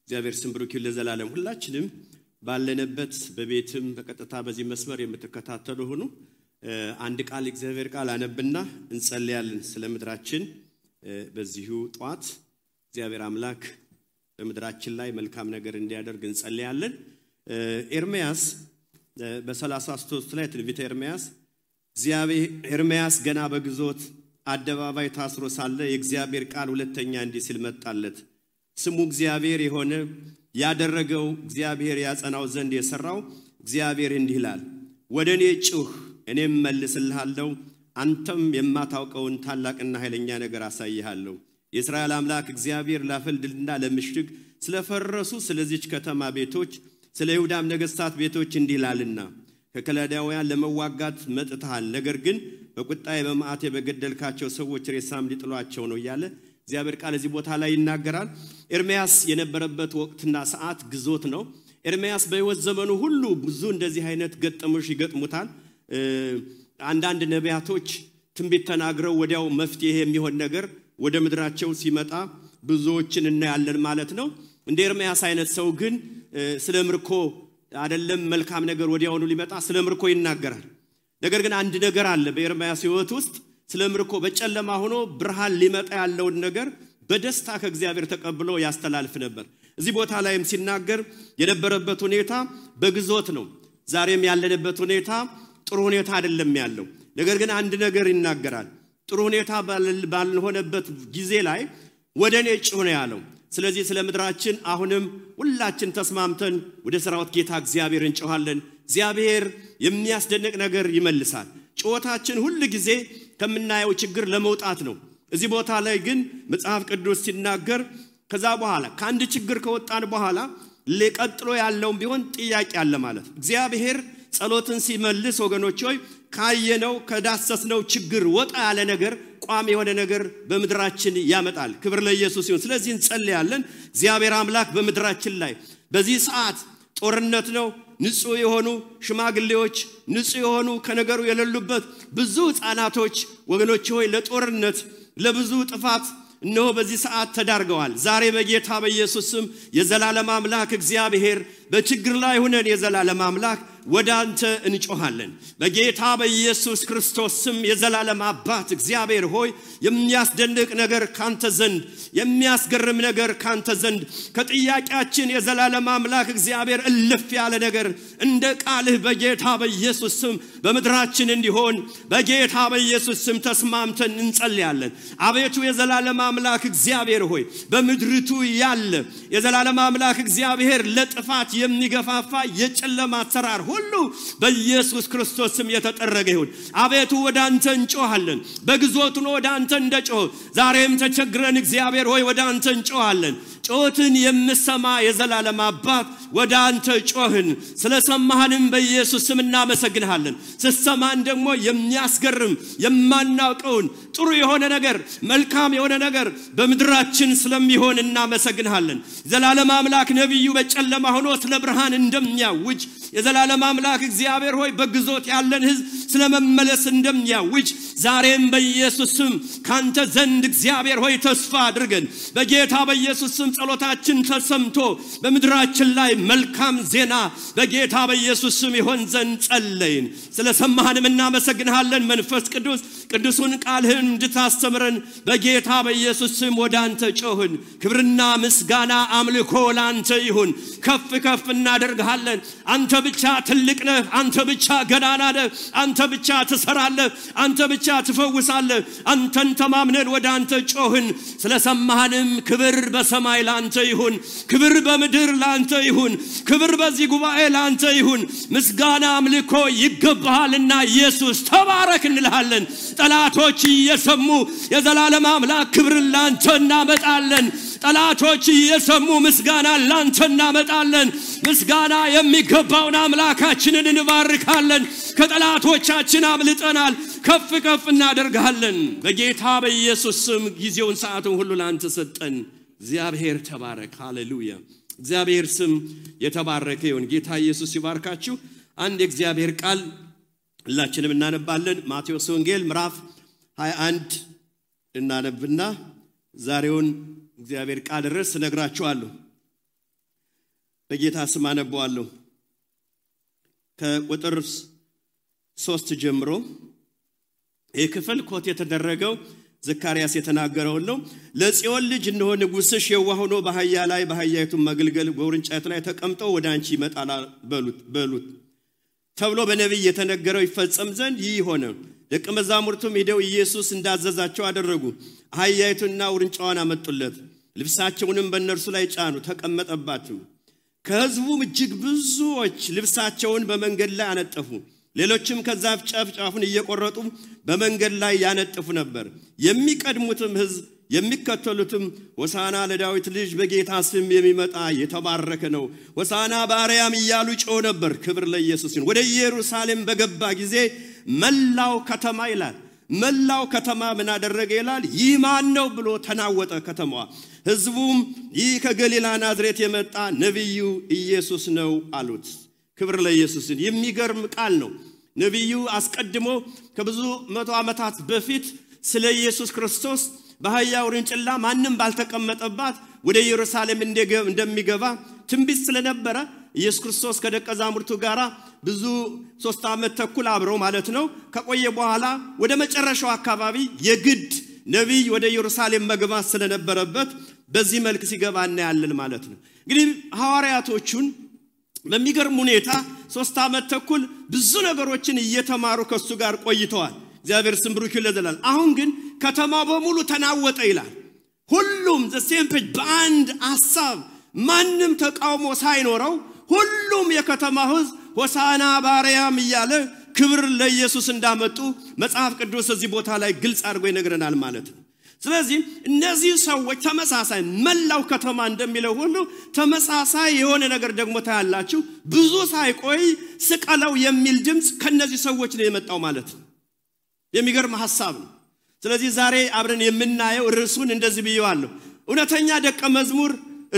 እግዚአብሔር ስም ብሩክ ይሁን ለዘላለም። ሁላችንም ባለንበት በቤትም በቀጥታ በዚህ መስመር የምትከታተሉ ሁኑ። አንድ ቃል እግዚአብሔር ቃል አነብና እንጸልያለን ስለ ምድራችን። በዚሁ ጧት እግዚአብሔር አምላክ በምድራችን ላይ መልካም ነገር እንዲያደርግ እንጸልያለን። ኤርምያስ በ33 ላይ ትንቢተ ኤርምያስ ገና በግዞት አደባባይ ታስሮ ሳለ የእግዚአብሔር ቃል ሁለተኛ እንዲህ ሲል መጣለት። ስሙ እግዚአብሔር የሆነ ያደረገው እግዚአብሔር ያጸናው ዘንድ የሰራው እግዚአብሔር እንዲህ ይላል፣ ወደኔ ጩህ እኔም መልስልሃለሁ፣ አንተም የማታውቀውን ታላቅና ኃይለኛ ነገር አሳይሃለሁ። የእስራኤል አምላክ እግዚአብሔር ላፈልድልና ለምሽግ ስለፈረሱ ስለዚች ከተማ ቤቶች ስለ ይሁዳም ነገሥታት ቤቶች እንዲህ ይላልና ከከላዳውያን ለመዋጋት መጥተሃል፣ ነገር ግን በቁጣዬ በመዓቴ በገደልካቸው ሰዎች ሬሳም ሊጥሏቸው ነው እያለ እግዚአብሔር ቃል እዚህ ቦታ ላይ ይናገራል። ኤርምያስ የነበረበት ወቅትና ሰዓት ግዞት ነው። ኤርምያስ በሕይወት ዘመኑ ሁሉ ብዙ እንደዚህ አይነት ገጠሞች ይገጥሙታል። አንዳንድ ነቢያቶች ትንቢት ተናግረው ወዲያው መፍትሄ የሚሆን ነገር ወደ ምድራቸው ሲመጣ ብዙዎችን እናያለን ማለት ነው። እንደ ኤርምያስ አይነት ሰው ግን ስለ ምርኮ አይደለም መልካም ነገር ወዲያውኑ ሊመጣ ስለ ምርኮ ይናገራል። ነገር ግን አንድ ነገር አለ በኤርምያስ ሕይወት ውስጥ ስለ ምርኮ በጨለማ ሆኖ ብርሃን ሊመጣ ያለውን ነገር በደስታ ከእግዚአብሔር ተቀብሎ ያስተላልፍ ነበር። እዚህ ቦታ ላይም ሲናገር የነበረበት ሁኔታ በግዞት ነው። ዛሬም ያለንበት ሁኔታ ጥሩ ሁኔታ አይደለም ያለው። ነገር ግን አንድ ነገር ይናገራል። ጥሩ ሁኔታ ባልሆነበት ጊዜ ላይ ወደኔ ጩህ ነው ያለው። ስለዚህ ስለ ምድራችን አሁንም ሁላችን ተስማምተን ወደ ሥራውት ጌታ እግዚአብሔር እንጮሃለን። እግዚአብሔር የሚያስደንቅ ነገር ይመልሳል። ጩኸታችን ሁሉ ጊዜ ከምናየው ችግር ለመውጣት ነው። እዚህ ቦታ ላይ ግን መጽሐፍ ቅዱስ ሲናገር ከዛ በኋላ ከአንድ ችግር ከወጣን በኋላ ለቀጥሎ ያለውም ቢሆን ጥያቄ አለ ማለት ነው። እግዚአብሔር ጸሎትን ሲመልስ ወገኖች ሆይ ካየነው ከዳሰስነው ችግር ወጣ ያለ ነገር ቋሚ የሆነ ነገር በምድራችን ያመጣል። ክብር ለኢየሱስ ይሁን። ስለዚህ እንጸልያለን። እግዚአብሔር አምላክ በምድራችን ላይ በዚህ ሰዓት ጦርነት ነው። ንጹህ የሆኑ ሽማግሌዎች ንጹህ የሆኑ ከነገሩ የሌሉበት ብዙ ሕፃናቶች ወገኖች ሆይ ለጦርነት ለብዙ ጥፋት እነሆ በዚህ ሰዓት ተዳርገዋል። ዛሬ በጌታ በኢየሱስ ስም የዘላለም አምላክ እግዚአብሔር በችግር ላይ ሆነን የዘላለም አምላክ ወደ አንተ እንጮሃለን። በጌታ በኢየሱስ ክርስቶስ ስም የዘላለም አባት እግዚአብሔር ሆይ የሚያስደንቅ ነገር ካንተ ዘንድ የሚያስገርም ነገር ካንተ ዘንድ ከጥያቄያችን የዘላለም አምላክ እግዚአብሔር እልፍ ያለ ነገር እንደ ቃልህ በጌታ በኢየሱስ ስም በምድራችን እንዲሆን በጌታ በኢየሱስ ስም ተስማምተን እንጸልያለን። አቤቱ የዘላለም አምላክ እግዚአብሔር ሆይ በምድርቱ ያለ የዘላለም አምላክ እግዚአብሔር ለጥፋት የሚገፋፋ የጨለማ አሰራር ሁሉ በኢየሱስ ክርስቶስ ስም የተጠረገ ይሁን። አቤቱ ወደ አንተ እንጮሃለን። በግዞቱ ነው ወደ አንተ እንደጮህ ዛሬም ተቸግረን እግዚአብሔር ሆይ ወደ አንተ እንጮሃለን። ጮትን የምሰማ የዘላለም አባት ወደ አንተ ጮህን። ስለሰማህንም በኢየሱስ ስም እናመሰግንሃለን። ስትሰማን ደግሞ የሚያስገርም የማናውቀውን ጥሩ የሆነ ነገር መልካም የሆነ ነገር በምድራችን ስለሚሆን እናመሰግንሃለን። የዘላለም አምላክ ነብዩ በጨለማ ሆኖ ስለ ብርሃን እንደሚያውጅ የዘላለም አምላክ እግዚአብሔር ሆይ በግዞት ያለን ሕዝብ ስለመመለስ እንደሚያውጅ ዛሬም በኢየሱስ ስም ካንተ ዘንድ እግዚአብሔር ሆይ ተስፋ አድርገን በጌታ በኢየሱስ ስም ጸሎታችን ተሰምቶ በምድራችን ላይ መልካም ዜና በጌታ በኢየሱስ ስም ይሆን ዘንድ ጸለይን። ስለሰማህንም እናመሰግንሃለን። መንፈስ ቅዱስ ቅዱሱን ቃልህን እንድታስተምረን በጌታ በኢየሱስ ስም ወደ አንተ ጮህን። ክብርና ምስጋና አምልኮ ላንተ ይሁን። ከፍ ከፍ እናደርግሃለን። አንተ ብቻ ትልቅ ነህ። አንተ ብቻ ገናና ነህ። አንተ ብቻ ትሰራለህ። አንተ ብቻ ትፈውሳለህ። አንተን ተማምነን ወደ አንተ ጮህን። ስለሰማህንም ክብር በሰማይ ላንተ ይሁን። ክብር በምድር ላንተ ይሁን። ክብር በዚህ ጉባኤ ላንተ ይሁን። ምስጋና አምልኮ ይገባሃልና ኢየሱስ ተባረክ እንልሃለን። ጠላቶች እየሰሙ የዘላለም አምላክ ክብርን ላንተ እናመጣለን። ጠላቶች እየሰሙ ምስጋና ላንተ እናመጣለን። ምስጋና የሚገባውን አምላካችንን እንባርካለን። ከጠላቶቻችን አምልጠናል። ከፍ ከፍ እናደርጋለን። በጌታ በኢየሱስ ስም ጊዜውን ሰዓቱን ሁሉ ላንተ ሰጠን። እግዚአብሔር ተባረክ። ሃሌሉያ። እግዚአብሔር ስም የተባረከ ይሁን። ጌታ ኢየሱስ ይባርካችሁ። አንድ የእግዚአብሔር ቃል ሁላችንም እናነባለን። ማቴዎስ ወንጌል ምዕራፍ 21 እናነብና ዛሬውን እግዚአብሔር ቃል ርዕስ ነግራችኋለሁ። በጌታ ስም አነባዋለሁ። ከቁጥር 3 ጀምሮ የክፍል ኮት የተደረገው ዘካርያስ የተናገረው ነው። ለጽዮን ልጅ እነሆ ንጉሥሽ የዋህ ሆኖ በአህያ ላይ በአህያይቱ መግልገል በውርንጫይቱ ላይ ተቀምጦ ወደ አንቺ ይመጣል በሉት ተብሎ በነቢይ የተነገረው ይፈጸም ዘንድ ይህ ሆነ። ደቀ መዛሙርቱም ሄደው ኢየሱስ እንዳዘዛቸው አደረጉ። አህያይቱና ውርንጫዋን አመጡለት፣ ልብሳቸውንም በእነርሱ ላይ ጫኑ፣ ተቀመጠባቸው። ከሕዝቡም እጅግ ብዙዎች ልብሳቸውን በመንገድ ላይ አነጠፉ። ሌሎችም ከዛፍ ጫፉን እየቆረጡ በመንገድ ላይ ያነጥፉ ነበር። የሚቀድሙትም ሕዝብ የሚከተሉትም ሆሳና ለዳዊት ልጅ በጌታ ስም የሚመጣ የተባረከ ነው፣ ሆሳና በአርያም እያሉ ጮሁ ነበር። ክብር ለኢየሱስ ይሁን። ወደ ኢየሩሳሌም በገባ ጊዜ መላው ከተማ ይላል መላው ከተማ ምን አደረገ ይላል? ይህ ማን ነው ብሎ ተናወጠ ከተማዋ። ሕዝቡም ይህ ከገሊላ ናዝሬት የመጣ ነብዩ ኢየሱስ ነው አሉት። ክብር ለኢየሱስ ይሁን። የሚገርም ቃል ነው። ነብዩ አስቀድሞ ከብዙ መቶ ዓመታት በፊት ስለ ኢየሱስ ክርስቶስ በአህያ ውርንጭላ ማንም ባልተቀመጠባት ወደ ኢየሩሳሌም እንደሚገባ ትንቢት ስለነበረ ኢየሱስ ክርስቶስ ከደቀ መዛሙርቱ ጋራ ብዙ 3 ዓመት ተኩል አብረው ማለት ነው ከቆየ በኋላ ወደ መጨረሻው አካባቢ የግድ ነብይ ወደ ኢየሩሳሌም መግባት ስለነበረበት በዚህ መልክ ሲገባ እናያለን ማለት ነው። እንግዲህ ሐዋርያቶቹን በሚገርም ሁኔታ 3 ዓመት ተኩል ብዙ ነገሮችን እየተማሩ ከሱ ጋር ቆይተዋል። እግዚአብሔር ስም ብሩክ ይለዘላል። አሁን ግን ከተማው በሙሉ ተናወጠ ይላል። ሁሉም ዘሴምፕጅ በአንድ ሐሳብ ማንም ተቃውሞ ሳይኖረው ሁሉም የከተማው ሕዝብ ሆሳና በአርያም እያለ ክብር ለኢየሱስ እንዳመጡ መጽሐፍ ቅዱስ እዚህ ቦታ ላይ ግልጽ አድርጎ ይነግረናል ማለት ነው። ስለዚህ እነዚህ ሰዎች ተመሳሳይ መላው ከተማ እንደሚለው ሁሉ ተመሳሳይ የሆነ ነገር ደግሞ ታያላችሁ። ብዙ ሳይቆይ ስቀለው የሚል ድምጽ ከነዚህ ሰዎች ነው የመጣው ማለት ነው። የሚገርም ሐሳብ ነው። ስለዚህ ዛሬ አብረን የምናየው ርዕሱን እንደዚህ ብየዋለሁ። እውነተኛ ደቀ መዝሙር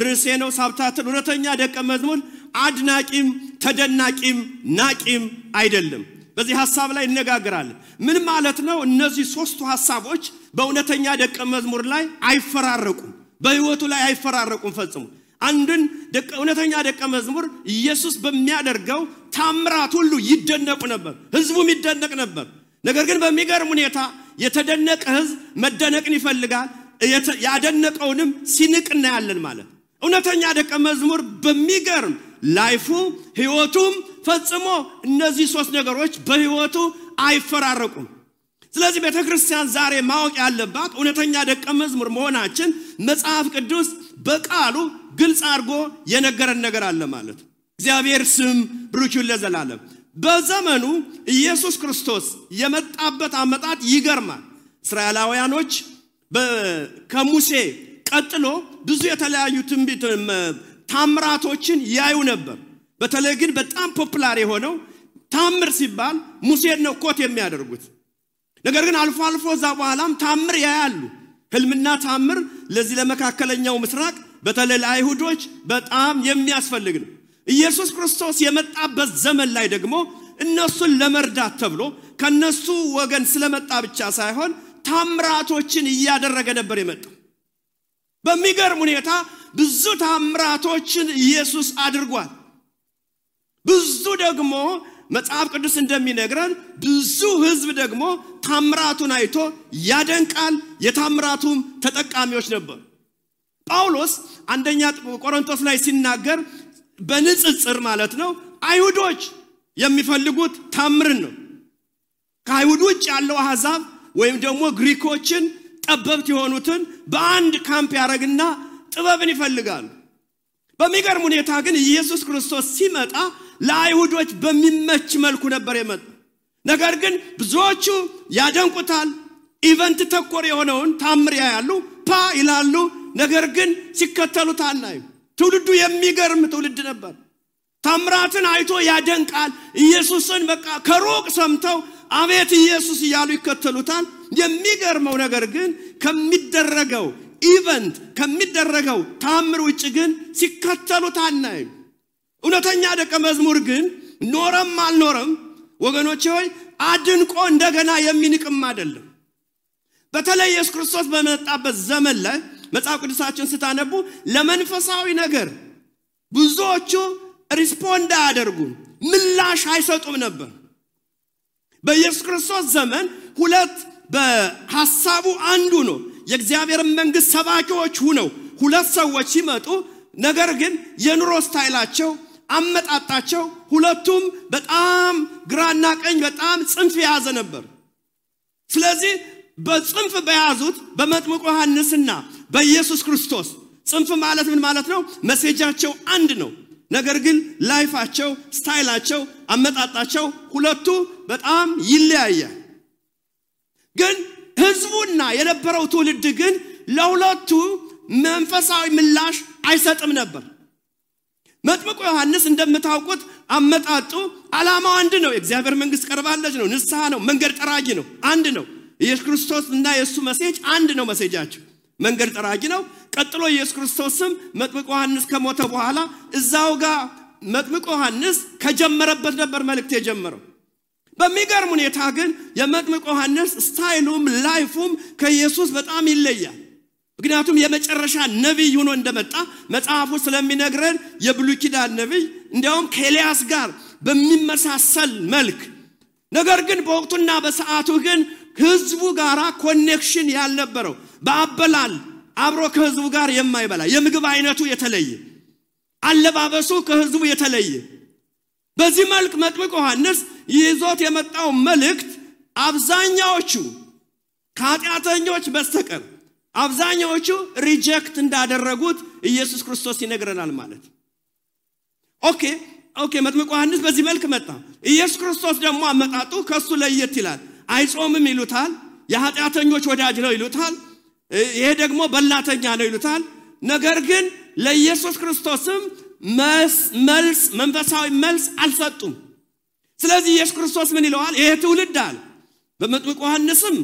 ርዕሴ ነው ሳብታትን። እውነተኛ ደቀ መዝሙር አድናቂም ተደናቂም ናቂም አይደለም። በዚህ ሐሳብ ላይ እነጋገራለን። ምን ማለት ነው? እነዚህ ሶስቱ ሐሳቦች በእውነተኛ ደቀ መዝሙር ላይ አይፈራረቁም፣ በህይወቱ ላይ አይፈራረቁም ፈጽሞ። አንድን እውነተኛ ደቀ መዝሙር ኢየሱስ በሚያደርገው ታምራት ሁሉ ይደነቁ ነበር፣ ህዝቡም ይደነቅ ነበር። ነገር ግን በሚገርም ሁኔታ የተደነቀ ህዝብ መደነቅን ይፈልጋል፣ ያደነቀውንም ሲንቅ እናያለን ማለት። እውነተኛ ደቀ መዝሙር በሚገርም ላይፉ ህይወቱም ፈጽሞ እነዚህ ሶስት ነገሮች በህይወቱ አይፈራረቁም። ስለዚህ ቤተክርስቲያን ዛሬ ማወቅ ያለባት እውነተኛ ደቀ መዝሙር መሆናችን መጽሐፍ ቅዱስ በቃሉ ግልጽ አድርጎ የነገረን ነገር አለ ማለት። እግዚአብሔር ስም ብሩክ ይሁን ለዘላለም። በዘመኑ ኢየሱስ ክርስቶስ የመጣበት አመጣጥ ይገርማል። እስራኤላውያኖች ከሙሴ ቀጥሎ ብዙ የተለያዩ ትንቢት ታምራቶችን ያዩ ነበር። በተለይ ግን በጣም ፖፑላር የሆነው ታምር ሲባል ሙሴን ነው ኮት የሚያደርጉት። ነገር ግን አልፎ አልፎ ዛ በኋላም ታምር ያያሉ። ህልምና ታምር ለዚህ ለመካከለኛው ምስራቅ በተለይ ለአይሁዶች በጣም የሚያስፈልግ ነው። ኢየሱስ ክርስቶስ የመጣበት ዘመን ላይ ደግሞ እነሱን ለመርዳት ተብሎ ከነሱ ወገን ስለመጣ ብቻ ሳይሆን ታምራቶችን እያደረገ ነበር የመጣው። በሚገርም ሁኔታ ብዙ ታምራቶችን ኢየሱስ አድርጓል። ብዙ ደግሞ መጽሐፍ ቅዱስ እንደሚነግረን ብዙ ህዝብ ደግሞ ታምራቱን አይቶ ያደንቃል፣ የታምራቱም ተጠቃሚዎች ነበሩ። ጳውሎስ አንደኛ ቆሮንቶስ ላይ ሲናገር በንጽጽር ማለት ነው አይሁዶች የሚፈልጉት ታምርን ነው። ከአይሁድ ውጭ ያለው አሕዛብ ወይም ደግሞ ግሪኮችን ጠበብት የሆኑትን በአንድ ካምፕ ያረግና ጥበብን ይፈልጋሉ። በሚገርም ሁኔታ ግን ኢየሱስ ክርስቶስ ሲመጣ ለአይሁዶች በሚመች መልኩ ነበር የመጣው። ነገር ግን ብዙዎቹ ያደንቁታል፣ ኢቨንት ተኮር የሆነውን ታምር ያያሉ፣ ፓ ይላሉ። ነገር ግን ሲከተሉት አናይም። ትውልዱ የሚገርም ትውልድ ነበር። ታምራትን አይቶ ያደንቃል። ኢየሱስን በቃ ከሩቅ ሰምተው አቤት ኢየሱስ እያሉ ይከተሉታል። የሚገርመው ነገር ግን ከሚደረገው ኢቨንት ከሚደረገው ታምር ውጭ ግን ሲከተሉት አናይም። እውነተኛ ደቀ መዝሙር ግን ኖረም አልኖረም ወገኖቼ ሆይ አድንቆ እንደገና የሚንቅም አይደለም። በተለይ ኢየሱስ ክርስቶስ በመጣበት ዘመን ላይ መጽሐፍ ቅዱሳችን ስታነቡ ለመንፈሳዊ ነገር ብዙዎቹ ሪስፖንድ አያደርጉም ምላሽ አይሰጡም ነበር በኢየሱስ ክርስቶስ ዘመን ሁለት በሐሳቡ አንዱ ነው የእግዚአብሔር መንግስት ሰባኪዎች ሆነው ሁለት ሰዎች ሲመጡ ነገር ግን የኑሮ ስታይላቸው አመጣጣቸው ሁለቱም በጣም ግራና ቀኝ በጣም ጽንፍ ያዘ ነበር ስለዚህ በጽንፍ በያዙት በመጥምቁ ዮሐንስና በኢየሱስ ክርስቶስ ጽንፍ ማለት ምን ማለት ነው መሴጃቸው አንድ ነው ነገር ግን ላይፋቸው ስታይላቸው አመጣጣቸው ሁለቱ በጣም ይለያያል ግን ህዝቡና የነበረው ትውልድ ግን ለሁለቱ መንፈሳዊ ምላሽ አይሰጥም ነበር መጥምቁ ዮሐንስ እንደምታውቁት አመጣጡ ዓላማው አንድ ነው የእግዚአብሔር መንግስት ቀርባለች ነው ንስሐ ነው መንገድ ጠራጊ ነው አንድ ነው ኢየሱስ ክርስቶስና የሱ መሴጅ አንድ ነው መሴጃቸው መንገድ ጠራጊ ነው ቀጥሎ ኢየሱስ ክርስቶስም መጥምቁ ዮሐንስ ከሞተ በኋላ እዛው ጋር መጥምቁ ዮሐንስ ከጀመረበት ነበር መልእክት የጀመረው በሚገርም ሁኔታ ግን የመጥምቁ ዮሐንስ ስታይሉም ላይፉም ከኢየሱስ በጣም ይለያል ምክንያቱም የመጨረሻ ነብይ ሆኖ እንደመጣ መጽሐፉ ስለሚነግረን የብሉይ ኪዳን ነብይ እንዲያውም ከኤልያስ ጋር በሚመሳሰል መልክ ነገር ግን በወቅቱና በሰዓቱ ግን ህዝቡ ጋራ ኮኔክሽን ያልነበረው በአበላል አብሮ ከህዝቡ ጋር የማይበላ የምግብ አይነቱ የተለየ አለባበሱ ከህዝቡ የተለየ በዚህ መልክ መጥምቁ ዮሐንስ ይዞት የመጣው መልእክት አብዛኛዎቹ ከኃጢአተኞች በስተቀር አብዛኛዎቹ ሪጀክት እንዳደረጉት ኢየሱስ ክርስቶስ ይነግረናል ማለት ኦኬ መጥምቁ ዮሐንስ በዚህ መልክ መጣ ኢየሱስ ክርስቶስ ደግሞ አመጣጡ ከሱ ለየት ይላል አይጾምም ይሉታል የኃጢአተኞች ወዳጅ ነው ይሉታል ይሄ ደግሞ በላተኛ ነው ይሉታል ነገር ግን ለኢየሱስ ክርስቶስም መልስ መንፈሳዊ መልስ አልሰጡም ስለዚህ ኢየሱስ ክርስቶስ ምን ይለዋል ይሄ ትውልድ አለ በመጥምቁ ዮሐንስም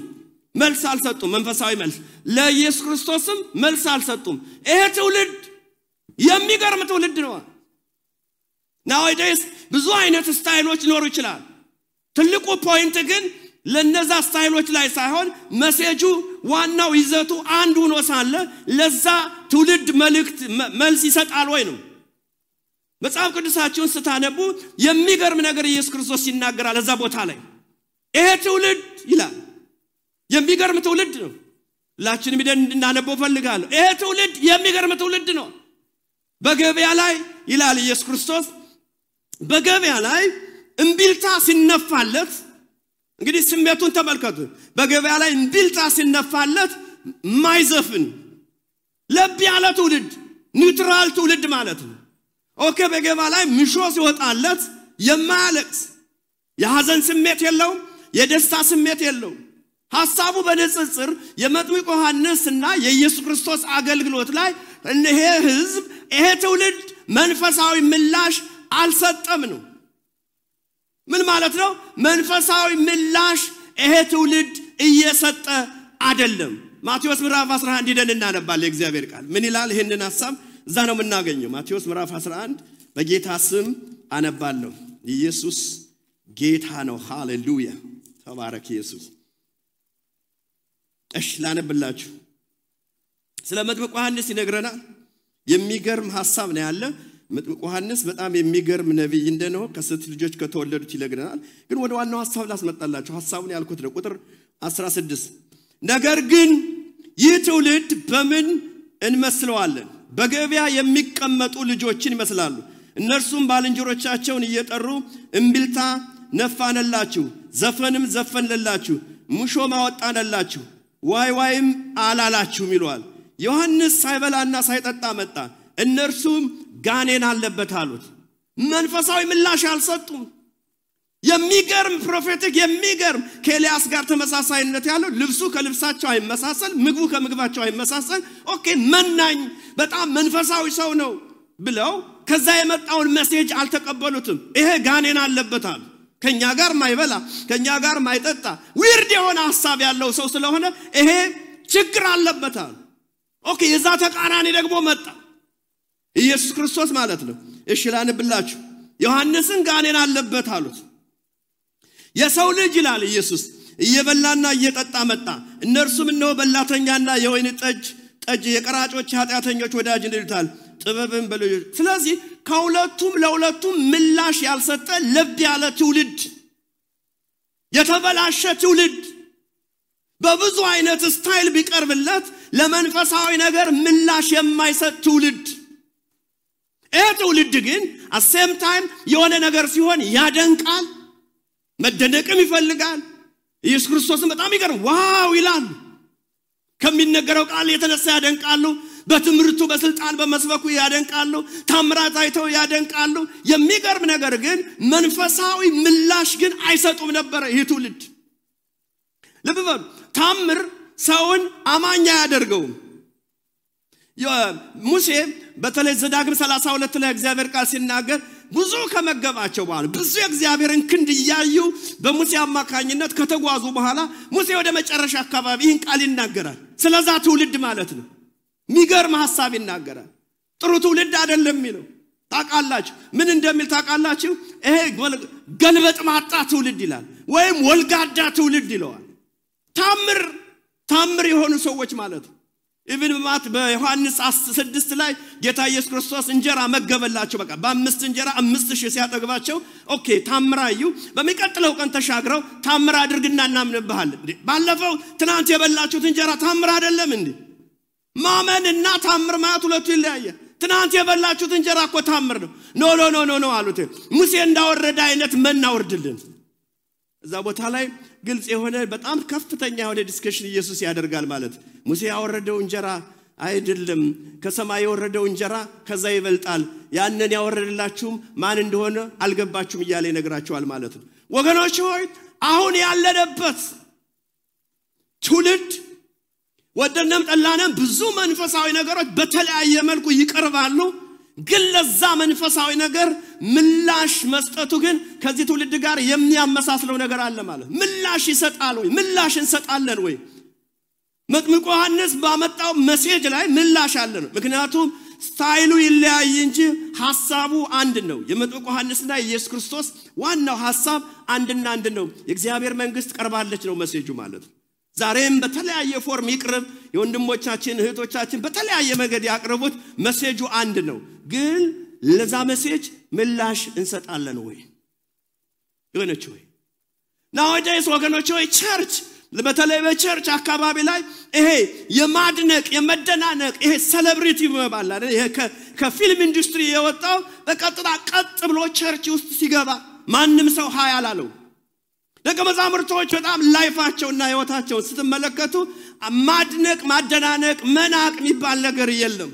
መልስ አልሰጡም መንፈሳዊ መልስ ለኢየሱስ ክርስቶስም መልስ አልሰጡም ይሄ ትውልድ የሚገርም ትውልድ ነው nowadays ብዙ አይነት ስታይሎች ሊኖሩ ይችላል ትልቁ ፖይንት ግን ለነዛ ስታይሎች ላይ ሳይሆን መሴጁ ዋናው ይዘቱ አንድ ሆኖ ሳለ ለዛ ትውልድ መልስ ይሰጣል ወይ ነው መጽሐፍ ቅዱሳችሁን ስታነቡ የሚገርም ነገር ኢየሱስ ክርስቶስ ይናገራል እዛ ቦታ ላይ ይሄ ትውልድ ይላል የሚገርም ትውልድ ነው ላችንም ይደን እንድናነበው ፈልጋለሁ ይሄ ትውልድ የሚገርም ትውልድ ነው በገበያ ላይ ይላል ኢየሱስ ክርስቶስ በገበያ ላይ እንቢልታ ሲነፋለት እንግዲህ ስሜቱን ተመልከቱ በገበያ ላይ እንቢልታ ሲነፋለት ማይዘፍን ለብ ያለ ትውልድ ኒውትራል ትውልድ ማለት ነው ኦኬ በገበያ ላይ ምሾ ሲወጣለት የማያለቅስ የሐዘን ስሜት የለው የደስታ ስሜት የለው ሐሳቡ በንጽጽር የመጥምቁ ዮሐንስና የኢየሱስ ክርስቶስ አገልግሎት ላይ እነሆ ህዝብ ይሄ ትውልድ መንፈሳዊ ምላሽ አልሰጠም ነው ምን ማለት ነው መንፈሳዊ ምላሽ ይሄ ትውልድ እየሰጠ አይደለም ማቴዎስ ምዕራፍ 11 ሄደን እናነባለን የእግዚአብሔር ቃል ምን ይላል ይሄንን ሐሳብ እዛ ነው የምናገኘው ማቴዎስ ምዕራፍ 11 በጌታ ስም አነባለሁ ኢየሱስ ጌታ ነው ሃሌሉያ ተባረክ ኢየሱስ እሺ ላነብላችሁ ስለ መጥምቁ ዮሐንስ ይነግረናል የሚገርም ሐሳብ ነው ያለ መጥምቁ ዮሐንስ በጣም የሚገርም ነብይ እንደነው ከሴት ልጆች ከተወለዱት ይነግረናል ግን ወደ ዋናው ሐሳብ ላስመጣላችሁ ሐሳቡን ያልኩት ነው ቁጥር 16 ነገር ግን ይህ ትውልድ በምን እንመስለዋለን በገበያ የሚቀመጡ ልጆችን ይመስላሉ እነርሱም ባልንጀሮቻቸውን እየጠሩ እምቢልታ ነፋነላችሁ ዘፈንም ዘፈንለላችሁ ሙሾ ማወጣነላችሁ ዋይም አላላችሁም ይሏል ዮሐንስ ሳይበላና ሳይጠጣ መጣ እነርሱም ጋኔን አለበት አሉት መንፈሳዊ ምላሽ አልሰጡም የሚገርም ፕሮፌቲክ የሚገርም ከኤልያስ ጋር ተመሳሳይነት ያለው ልብሱ ከልብሳቸው አይመሳሰል ምግቡ ከምግባቸው አይመሳሰል ኦኬ መናኝ በጣም መንፈሳዊ ሰው ነው ብለው ከዛ የመጣውን ሜሴጅ አልተቀበሉትም ይሄ ጋኔን አለበት አሉ ከኛ ጋር ማይበላ ከኛ ጋር ማይጠጣ ዊርድ የሆነ ሐሳብ ያለው ሰው ስለሆነ ይሄ ችግር አለበት አሉ ኦኬ የዛ ተቃራኒ ደግሞ መጣ ኢየሱስ ክርስቶስ ማለት ነው እሺ ላንብላችሁ ዮሐንስን ጋኔን አለበት አሉት የሰው ልጅ ይላል ኢየሱስ እየበላና እየጠጣ መጣ እነርሱም ነው በላተኛና የወይን ጠጅ የቀራጮች ኃጢአተኞች ወዳጅ እንድልታል ጥበብን በልዩ ስለዚህ ከሁለቱም ለሁለቱም ምላሽ ያልሰጠ ለብ ያለ ትውልድ የተበላሸ ትውልድ በብዙ አይነት ስታይል ቢቀርብለት ለመንፈሳዊ ነገር ምላሽ የማይሰጥ ትውልድ ትውልድ ግን at same time የሆነ ነገር ሲሆን ያደንቃል መደነቅም ይፈልጋል ኢየሱስ ክርስቶስን በጣም ይገርም ዋው ይላል ከሚነገረው ቃል የተነሳ ያደንቃሉ በትምርቱ በስልጣን በመስበኩ ያደንቃሉ ታምራት አይተው ያደንቃሉ የሚገርም ነገር ግን መንፈሳዊ ምላሽ ግን አይሰጡም ነበር ይህ ትውልድ ለበበ ታምር ሰውን አማኛ ያደርገው ሙሴ በተለይ ዘዳግም 32 ላይ እግዚአብሔር ቃል ሲናገር ብዙ ከመገባቸው በኋላ ብዙ እግዚአብሔርን ክንድ ያዩ በሙሴ አማካኝነት ከተጓዙ በኋላ ሙሴ ወደ መጨረሻ አካባቢ ይህን ቃል ይናገራል ስለዛ ትውልድ ማለት ነው ሚገርም ሐሳብ ይናገራል ጥሩ ትውልድ አይደለም የሚለው ታቃላችሁ ምን እንደሚል ታቃላችሁ ይሄ ገልበጥ ማጣ ትውልድ ይላል ወይም ወልጋዳ ትውልድ ይለዋል ታምር የሆኑ ሰዎች ማለት ነው ኢቭን ማት በዮሐንስ 6 ላይ ጌታ ኢየሱስ ክርስቶስ እንጀራ መገበላቸው በቃ በ5 እንጀራ 5000 ሲያጠግባቸው ኦኬ ታምራዩ በሚቀጥለው ቀን ተሻግረው ታምር አድርግና እናምንብሃል ባለፈው ትናንት የበላችሁት እንጀራ ታምር አይደለም እንዴ ማመንና ታምር ማለት ሁለቱ ይለያያል ትናንት የበላችሁት እንጀራ እኮ ታምር ነው ኖ አሉት ሙሴ እንዳወረደ አይነት መናወርድልን እዛ ቦታ ላይ ግልጽ የሆነ በጣም ከፍተኛ የሆነ ዲስከሽን ኢየሱስ ያደርጋል ማለት ሙሴ ያወረደው እንጀራ አይደለም ከሰማይ ያወረደው እንጀራ ከዛ ይበልጣል ያንን ያወረደላችሁም ማን እንደሆነ አልገባችሁም እያለ ይነግራቸዋል ማለት ነው ወገኖች ሆይ አሁን ያለነበት ትውልድ ወደነም ጠላንም ብዙ መንፈሳዊ ነገሮች በተለያየ መልኩ ይቀርባሉ ግን ለዛ መንፈሳዊ ነገር ምላሽ መስጠቱ ግን ከዚህ ትውልድ ጋር የሚያመሳስለው ነገር አለ ማለት ምላሽ ይሰጣል ወይ ምላሽ እንሰጣለን ወይ መጥምቁ ዮሐንስ ባመጣው ሜሴጅ ላይ ምላሽ አለ ነው ምክንያቱም ስታይሉ ይለያይ እንጂ ሐሳቡ አንድ ነው የመጥምቁ ዮሐንስና ኢየሱስ ክርስቶስ ዋናው ሐሳብ አንድና አንድ ነው የእግዚአብሔር መንግስት ቀርባለች ነው ሜሴጁ ማለት ዛሬም በተለያየ ፎርም ይቅርብ የወንድሞቻችን እህቶቻችን በተለያየ መንገድ ያቀርቡት ሜሴጁ አንድ ነው ግን ለዛ ሜሴጅ ምላሽ እንሰጣለን ወይ ወገኖች ወይ nowadays ወገኖች ወይ ቸርች በተለይ በቸርች አካባቢ ላይ ይሄ የማድነቅ የመደናነቅ ይሄ ሴሌብሪቲ መባል ይሄ ከፊልም ኢንዱስትሪ የወጣው በቀጥታ ቀጥ ብሎ ቸርች ውስጥ ሲገባ ማንንም ሰው ሃይ አላለው ለከመዛምርቶች በጣም ላይፋቸውና ህይወታቸው ስትመለከቱ ማድነቅ ማደናነቅ መናቅ የሚባል ነገር የለም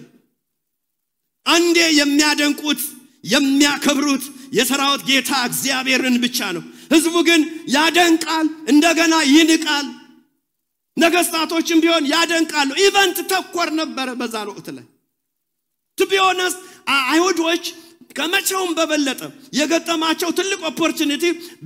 አንዴ የሚያደንቁት የሚያከብሩት የሰራዊት ጌታ እግዚአብሔርን ብቻ ነው ህዝቡ ግን ያደንቃል እንደገና ይንቃል ነገስታቶችም ቢሆን ያደንቃሉ ኢቨንት ተኮር ነበር በዛ ወቅት ላይ to be honest አይሁዶች ከመቼውም በበለጠ የገጠማቸው ትልቅ ኦፖርቹኒቲ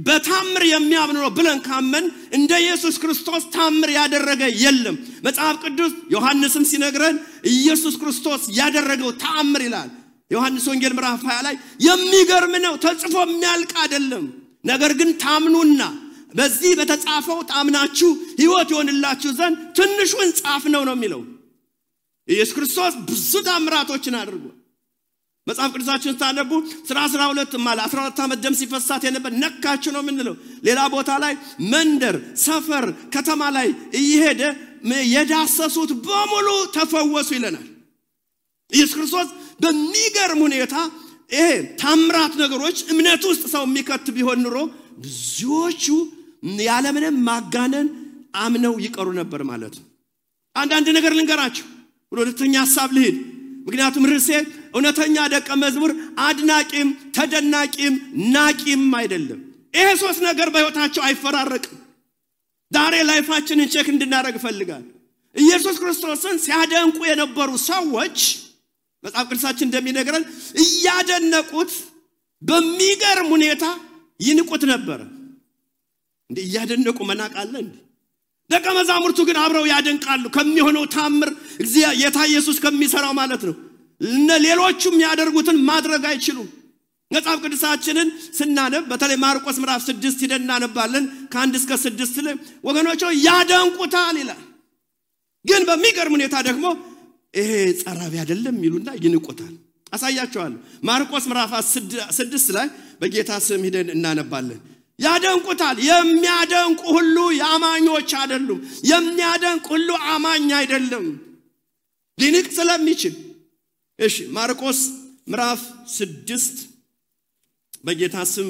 በታምር የሚያምኑ ነው ብለን ካመን እንደ ኢየሱስ ክርስቶስ ታምር ያደረገ የለም መጽሐፍ ቅዱስ ዮሐንስም ሲነግረን ኢየሱስ ክርስቶስ ያደረገው ታምር ይላል ዮሐንስ ወንጌል ምዕራፍ 20 ላይ የሚገርም ነው ተጽፎ የሚያልቅ አይደለም ነገር ግን ታምኑና በዚህ በተጻፈው ታምናችሁ ህይወት ይሆንላችሁ ዘንድ ትንሹን ጻፍ ነው የሚለው ኢየሱስ ክርስቶስ ብዙ ታምራቶችን አድርጓል መጽሐፍ ቅዱሳችን ታነቡ 12 ማለት 14 ዓመት ደም ሲፈሳት የነበር ነካችሁ ነው ምንለው ሌላ ቦታ ላይ መንደር ሰፈር ከተማ ላይ እየሄደ የዳሰሱት በሙሉ ተፈወሱ ይለናል ኢየሱስ ክርስቶስ በሚገርም ሁኔታ ታምራት ነገሮች እምነት ውስጥ ሰው የሚከት ቢሆን ኑሮ ብዙዎቹ ያለምንም ማጋነን አምነው ይቀሩ ነበር ማለት ነው አንድ ነገር ልንገራችሁ ሁለተኛ ሐሳብ ልሂድ ምክንያቱም ርዕሴ እውነተኛ ደቀ መዝሙር አድናቂም ተደናቂም ናቂም አይደለም ይሄ ሶስት ነገር በህይወታቸው አይፈራረቅም ዛሬ ላይፋችንን ቼክ እንድናደርግ ፈልጋል ኢየሱስ ክርስቶስን ሲያደንቁ የነበሩ ሰዎች መጽሐፍ ቅዱሳችን እንደሚነግረን እያደነቁት በሚገርም ሁኔታ ይንቁት ነበር እንዴ እያደነቁ መናቃለ እንዴ ደቀ መዛሙርቱ ግን አብረው ያደንቃሉ ከሚሆነው ታምር እግዚአብሔር ጌታ ኢየሱስ ከሚሰራው ማለት ነው ሌሎቹም ያደርጉትን ማድረግ አይችሉም መጽሐፍ ቅዱሳችንን ስናነብ በተለይ ማርቆስ ምዕራፍ 6 ይደናነባለን ከ1 እስከ 6 ላይ ወገኖች ያደንቁታል ይላል ግን በሚገርም ሁኔታ ደግሞ ይሄ ጸራቢ አይደለም ይሉና ይንቁታል አሳያችኋለሁ። ማርቆስ ምዕራፍ 6 ላይ በጌታ ስም ሄደን እናነባለን። ያደንቁታል። የሚያደንቁ ሁሉ ያማኞች አይደሉም። የሚያደንቅ ሁሉ አማኝ አይደለም ሊንቅ ስለሚችል። እሺ ማርቆስ ምዕራፍ 6 በጌታ ስም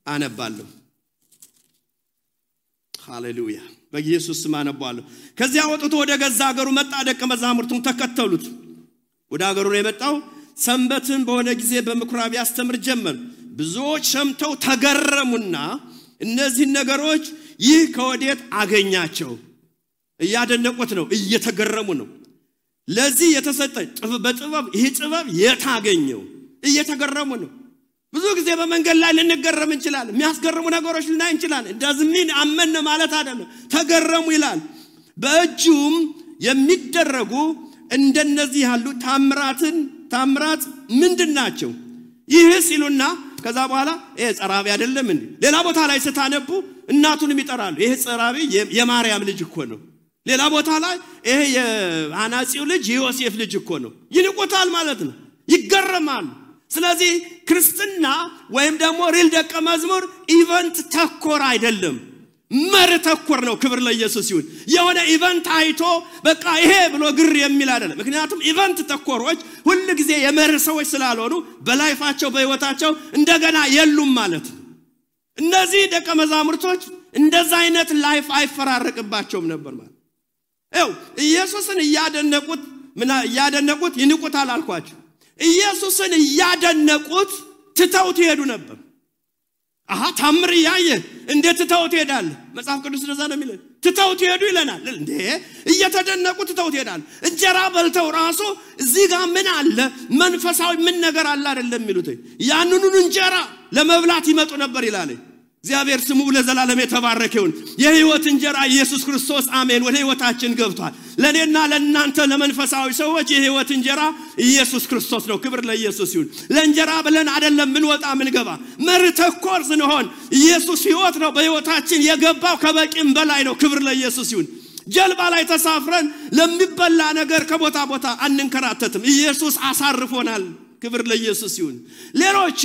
አነባለሁ። ሃሌሉያ በኢየሱስ ስም አነባለሁ። ከዚያ ወጥቶ ወደ ገዛ ሀገሩ መጣ። ደቀ መዛሙርቱም ተከተሉት። ወደ ሀገሩ ነው የመጣው። ሰንበትን በሆነ ጊዜ በምኩራብ ያስተምር ጀመር። ብዙዎች ሰምተው ተገረሙና እነዚህ ነገሮች ይህ ከወዴት አገኛቸው? እያደነቁት ነው፣ እየተገረሙ ነው። ለዚህ የተሰጠ በጥበብ ይህ ጥበብ የታገኘው እየተገረሙ ነው። ብዙ ጊዜ በመንገድ ላይ ልንገረም እንችላለን። የሚያስገርሙ ነገሮች ልናይ እንችላለን። እንደዚህ አመነ ማለት አይደለም። ተገረሙ ይላል። በእጁም የሚደረጉ እንደነዚህ ያሉ ታምራት ምንድናቸው? ይህ ሲሉና ከዛ በኋላ ይሄ ጸራቢ አይደለም እንዴ? ሌላ ቦታ ላይ ስታነቡ እናቱንም ይጠራሉ። ይሄ ጸራቢ የማርያም ልጅ እኮ ነው። ሌላ ቦታ ላይ ይሄ የአናጺው ልጅ የዮሴፍ ልጅ እኮ ነው። ይንቁታል ማለት ነው። ይገረማሉ። ስለዚህ ክርስትና ወይም ደግሞ ሪል ደቀ መዝሙር ኢቨንት ተኮር አይደለም፣ መር ተኮር ነው። ክብር ለኢየሱስ ይሁን። የሆነ ኢቨንት አይቶ በቃ ይሄ ብሎ ግር የሚል አይደለም። ምክንያቱም ኢቨንት ተኮሮች ሁሉ ጊዜ የመር ሰዎች ስላልሆኑ በላይፋቸው በህይወታቸው እንደገና የሉም ማለት ነው። እነዚህ ደቀ መዛሙርቶች እንደዛ አይነት ላይፍ አይፈራረቅባቸውም ነበር ማለት ነው። ኢየሱስን እያደነቁት ይንቁታል አልኳችሁ። ኢየሱስን እያደነቁት ትተውት ይሄዱ ነበር። ታምር ያየ እንዴት ትተውት ይሄዳል? መጽሐፍ ቅዱስ እንደዛ ነው የሚለው። ትተውት ይሄዱ ይለናል እንዴ? እየተደነቁት ትተውት ይሄዳል። እንጀራ በልተው ራሱ እዚህ ጋር ምን አለ መንፈሳዊ ምን ነገር አለ አይደለም የሚሉት። ያንኑን እንጀራ ለመብላት ይመጡ ነበር ይላል። እግዚአብሔር ስሙ ለዘላለም የተባረከ ይሁን። የህይወት እንጀራ ኢየሱስ ክርስቶስ አሜን ወደ ህይወታችን ገብቷል። ለኔና ለእናንተ ለመንፈሳዊ ሰዎች የህይወት እንጀራ ኢየሱስ ክርስቶስ ነው። ክብር ለኢየሱስ ይሁን። ለእንጀራ ብለን አይደለም ምን ወጣ ምን ገባ መርተኮር ስንሆን ኢየሱስ ህይወት ነው በህይወታችን የገባው ከበቂም በላይ ነው። ክብር ለኢየሱስ ይሁን። ጀልባ ላይ ተሳፍረን ለሚበላ ነገር ከቦታ ቦታ አንንከራተትም። ኢየሱስ አሳርፎናል። ክብር ለኢየሱስ ይሁን። ሌሎቹ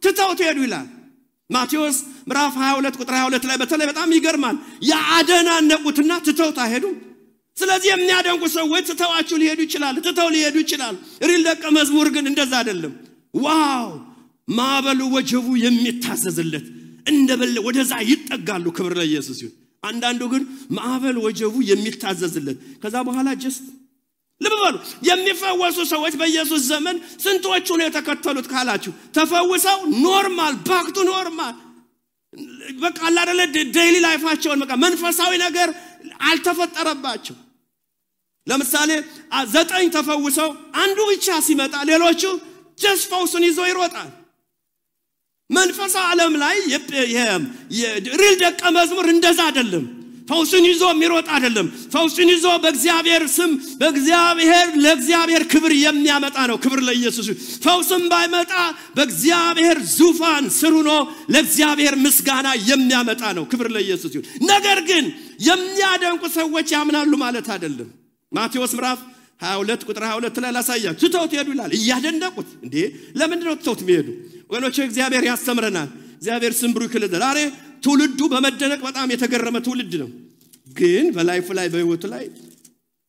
ትተውት ሄዱ ይላል። ማቴዎስ ምዕራፍ 22 ቁጥር 22 ላይ በተለይ በጣም ይገርማል። ያደናነቁትና ትተውት ሄዱ። ስለዚህ የሚያደንቁ ሰዎች ትተዋቸው ሊሄዱ ይችላል። ሪል ደቀ መዝሙር ግን እንደዛ አይደለም። ዋው ማዕበሉ ወጀቡ የሚታዘዝለት እንደበለ ወደዛ ይጠጋሉ። ክብር ለኢየሱስ ይሁን። አንዳንዱ ግን ማዕበል ወጀቡ የሚታዘዝለት ከዛ በኋላ ጀስት ለበሉ የሚፈወሱ ሰዎች በኢየሱስ ዘመን ስንቶቹ ነው የተከተሉት ካላችሁ ተፈውሰው ኖርማል ባክ ቱ ኖርማል በቃ አላደለ ዴይሊ ላይፋቸውን በቃ መንፈሳዊ ነገር አልተፈጠረባቸው። ለምሳሌ 9 ተፈውሰው አንዱ ብቻ ሲመጣ ሌሎቹ ጀስት ፈውስን ይዞ ይሮጣል። መንፈሳዊ ዓለም ላይ የሪል ደቀ መዝሙር እንደዛ አይደለም። ፈውስን ይዞ የሚሮጥ አይደለም። ፈውስን ይዞ በእግዚአብሔር ስም ለእግዚአብሔር ክብር የሚያመጣ ነው። ክብር ለኢየሱስ። ፈውስን ባይመጣ በእግዚአብሔር ዙፋን ስር ሆኖ ለእግዚአብሔር ምስጋና የሚያመጣ ነው። ክብር ለኢየሱስ ይሁን። ነገር ግን የሚያደንቁ ሰዎች ያምናሉ ማለት አይደለም። ማቴዎስ ምዕራፍ 22 ቁጥር 22 ላይ ላሳያችሁ። ትተውት ሄዱ ይላል። እያደነቁት እንዴ ለምንድን ነው ትተውት የሚሄዱ? ወገኖች እግዚአብሔር ያስተምረናል። እግዚአብሔር ስም ብሩክ ይሁን። ዛሬ ትውልዱ በመደነቅ በጣም የተገረመ ትውልድ ነው። ግን በላይፍ ላይ በህይወቱ ላይ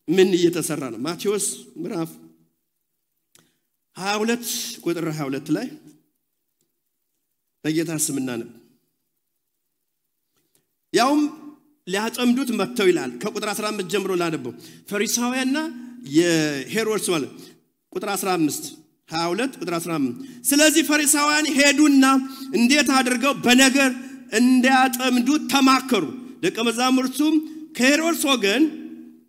ምን እየተሰራ ነው? ማቴዎስ ምዕራፍ 22 ቁጥር 22 ላይ በጌታ ስምና ነው ያውም ሊያጠምዱት መጥተው ይላል። ከቁጥር 15 ጀምሮ ላነበው። ፈሪሳውያንና የሄሮድስ ማለት ቁጥር 15 22 ቁጥር 15 ስለዚህ ፈሪሳውያን ሄዱና እንዴት አድርገው በነገር እንዲያጠምዱት ተማከሩ። ደቀ መዛሙርቱም ከሄሮድስ ወገን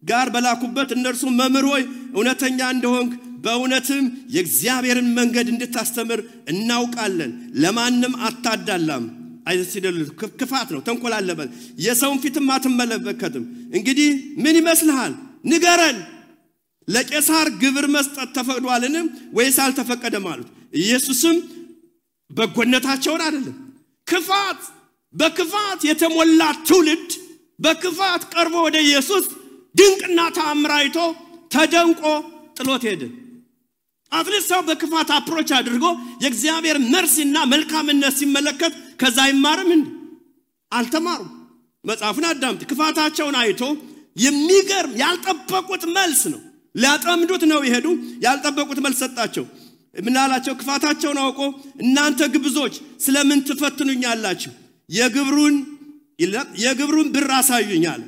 ጋር በላኩበት እነርሱ መምህር ሆይ እውነተኛ እንደሆንክ በእውነትም የእግዚአብሔርን መንገድ እንድታስተምር እናውቃለን፣ ለማንም አታዳላም፣ አይደል ክፋት ነው ተንኮል አለበት፣ የሰውን ፊትም አትመለከትም። እንግዲህ ምን ይመስልሃል? ንገረን፣ ለቄሳር ግብር መስጠት ተፈቅዷልን ወይስ አልተፈቀደም አሉት። ኢየሱስም በጎነታቸውን አይደለም በክፋት የተሞላ ትውልድ በክፋት ቀርቦ ወደ ኢየሱስ ድንቅና ተአምር አይቶ ተደንቆ ጥሎት ሄደ። አትሊስት ሰው በክፋት አፕሮች አድርጎ የእግዚአብሔር መርሲና መልካምነት ሲመለከት ከዛ ይማርም እንዴ? አልተማሩም። መጽሐፉን አዳምጥ። ክፋታቸውን አይቶ የሚገርም ያልጠበቁት መልስ ነው። ሊያጠምዱት ነው ይሄዱ። ያልጠበቁት መልስ ሰጣቸው። ምን አላቸው? ክፋታቸውን አውቆ እናንተ ግብዞች ስለምን ትፈትኑኛላችሁ? የግብሩን ብር አሳዩኛል።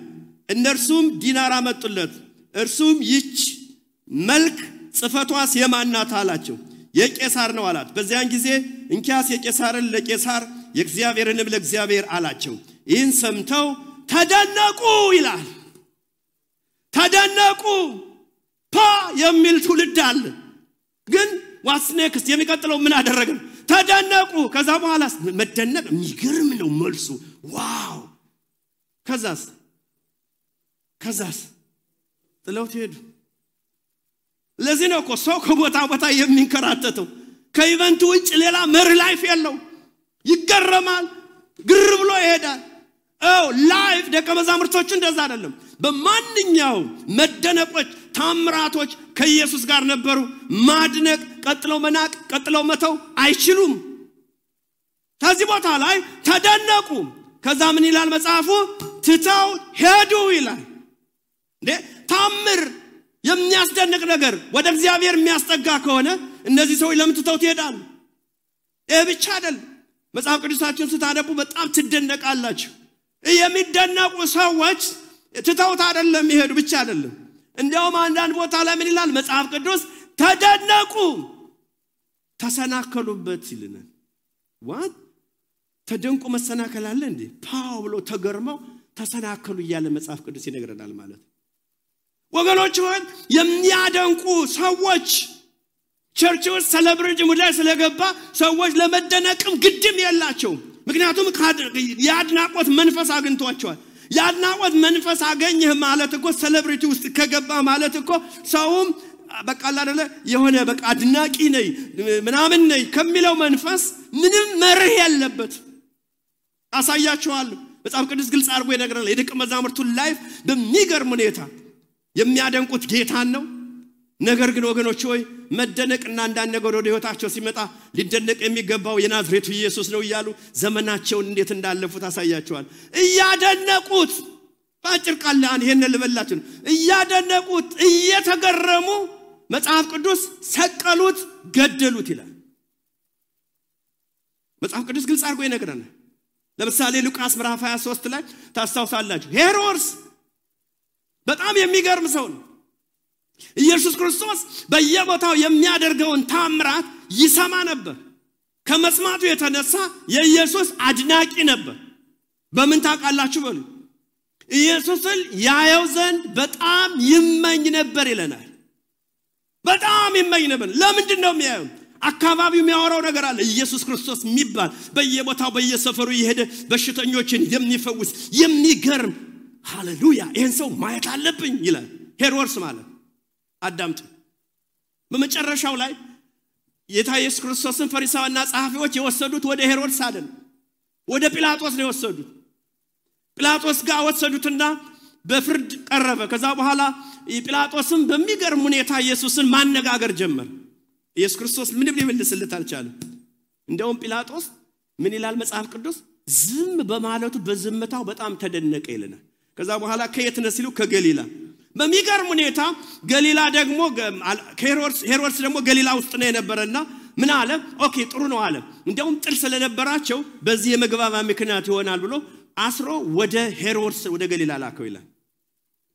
እነርሱም ዲናር አመጡለት። እርሱም ይች መልክ ጽፈቷስ የማናት አላቸው። የቄሳር ነው አላት። በዚያን ጊዜ እንኪያስ የቄሳርን ለቄሳር የእግዚአብሔርንም ለእግዚአብሔር አላቸው። ይህን ሰምተው ተደነቁ ይላል። ተደነቁ። የሚል ትውልድ አለ። ግን ዋትስ ኔክስት? የሚቀጥለው ምን አደረገ? ተደነቁ። ከዛ በኋላ መደነቅ የሚገርም ነው መልሱ። ዋው! ከዛስ ጥለውት ሄዱ። ለዚህ ነው እኮ ሰው ከቦታ ቦታ የሚንከራተተው። ከኢቨንቱ ውጭ ሌላ መሪ ላይፍ የለው። ይገረማል፣ ግር ብሎ ይሄዳል። ላይፍ ደቀ መዛሙርቶቹ እንደዛ አይደለም። በማንኛውም መደነቆች፣ ታምራቶች ከኢየሱስ ጋር ነበሩ። ማድነቅ፣ ቀጥለው መናቅ፣ ቀጥለው መተው አይችሉም። ከዚህ ቦታ ላይ ተደነቁ። ከዛ ምን ይላል መጽሐፉ? ትተው ሄዱ ይላል። ታምር የሚያስደንቅ ነገር ወደ እግዚአብሔር የሚያስጠጋ ከሆነ እነዚህ ሰዎች ለምን ትተውት ይሄዳሉ? ብቻ አይደለም። መጽሐፍ ቅዱሳችሁን ስታነቡ በጣም ትደነቃላችሁ። የሚደነቁ ሰዎች ትተውት አይደለም ይሄዱ ብቻ አይደለም። እንዲያውም አንዳንድ ቦታ ላይ ምን ይላል መጽሐፍ ቅዱስ? ተደነቁ፣ ተሰናከሉበት ይልናል። ዋት? ተደንቁ መሰናከል አለ እንዴ? ብሎ ተገርመው ተሰናከሉ እያለ መጽሐፍ ቅዱስ ይነግረናል ማለት። ወገኖች ሆይ የሚያደንቁ ሰዎች ቸርች ውስጥ ሴሌብሬቲ ሙዳይ ስለገባ ሰዎች ለመደነቅም ግድም የላቸው። ምክንያቱም ያድናቆት መንፈስ አግኝቷቸዋል። ያድናቆት መንፈስ አገኘህ ማለት እኮ ሴሌብሬቲ ውስጥ ከገባ ማለት እኮ ሰውም በቃ አይደለ የሆነ በቃ አድናቂ ነኝ ምናምን ነኝ ከሚለው መንፈስ ምንም መርህ ያለበት አሳያችኋለሁ። መጽሐፍ ቅዱስ ግልጽ አድርጎ ይነግረናል። የደቀ መዛሙርቱን ላይፍ በሚገርም ሁኔታ የሚያደንቁት ጌታን ነው። ነገር ግን ወገኖች ሆይ መደነቅና አንዳንድ ነገር ወደ ህይወታቸው ሲመጣ ሊደነቅ የሚገባው የናዝሬቱ ኢየሱስ ነው እያሉ ዘመናቸውን እንዴት እንዳለፉት አሳያቸዋል። እያደነቁት ባጭር ቃል ይሄን ልበላችሁ፣ እያደነቁት እየተገረሙ መጽሐፍ ቅዱስ ሰቀሉት፣ ገደሉት ይላል። መጽሐፍ ቅዱስ ግልጽ አድርጎ ይነግረናል። ለምሳሌ ሉቃስ ምዕራፍ 23 ላይ ታስታውሳላችሁ። ሄሮድስ በጣም የሚገርም ሰው ነው። ኢየሱስ ክርስቶስ በየቦታው የሚያደርገውን ታምራት ይሰማ ነበር። ከመስማቱ የተነሳ የኢየሱስ አድናቂ ነበር። በምን ታውቃላችሁ? በሉ ኢየሱስን ያየው ዘንድ በጣም ይመኝ ነበር ይለናል። በጣም ይመኝ ነበር። ለምንድን ነው የሚያየው? አካባቢው የሚያወራው ነገር አለ። ኢየሱስ ክርስቶስ የሚባል በየቦታው በየሰፈሩ ይሄደ በሽተኞችን የሚፈውስ የሚገርም ሃሌሉያ ይሄን ሰው ማየት አለብኝ ይላል ሄሮድስ ማለት። አዳምጡ። በመጨረሻው ላይ ጌታ ኢየሱስ ክርስቶስን ፈሪሳውያንና ጸሐፊዎች የወሰዱት ወደ ሄሮድስ አይደለም፣ ወደ ጲላጦስ ነው የወሰዱት። ጲላጦስ ጋር ወሰዱትና በፍርድ ቀረበ። ከዛ በኋላ ጲላጦስም በሚገርም ሁኔታ ኢየሱስን ማነጋገር ጀመረ። ኢየሱስ ክርስቶስ ምንም ሊመልስለት አልቻለም። እንደውም ጲላጦስ ምን ይላል መጽሐፍ ቅዱስ? ዝም በማለቱ በዝምታው በጣም ተደነቀ ይለናል። ከዛ በኋላ ከየት ነው ሲሉ ከገሊላ። በሚገርም ሁኔታ ገሊላ ደግሞ ሄሮድስ ደግሞ ገሊላ ውስጥ ነው የነበረና ምን አለ? ኦኬ ጥሩ ነው አለ። እንደውም ጥል ስለነበራቸው በዚህ የመግባባ ምክንያት ይሆናል ብሎ አስሮ ወደ ሄሮድስ ወደ ገሊላ ላከው ይላል።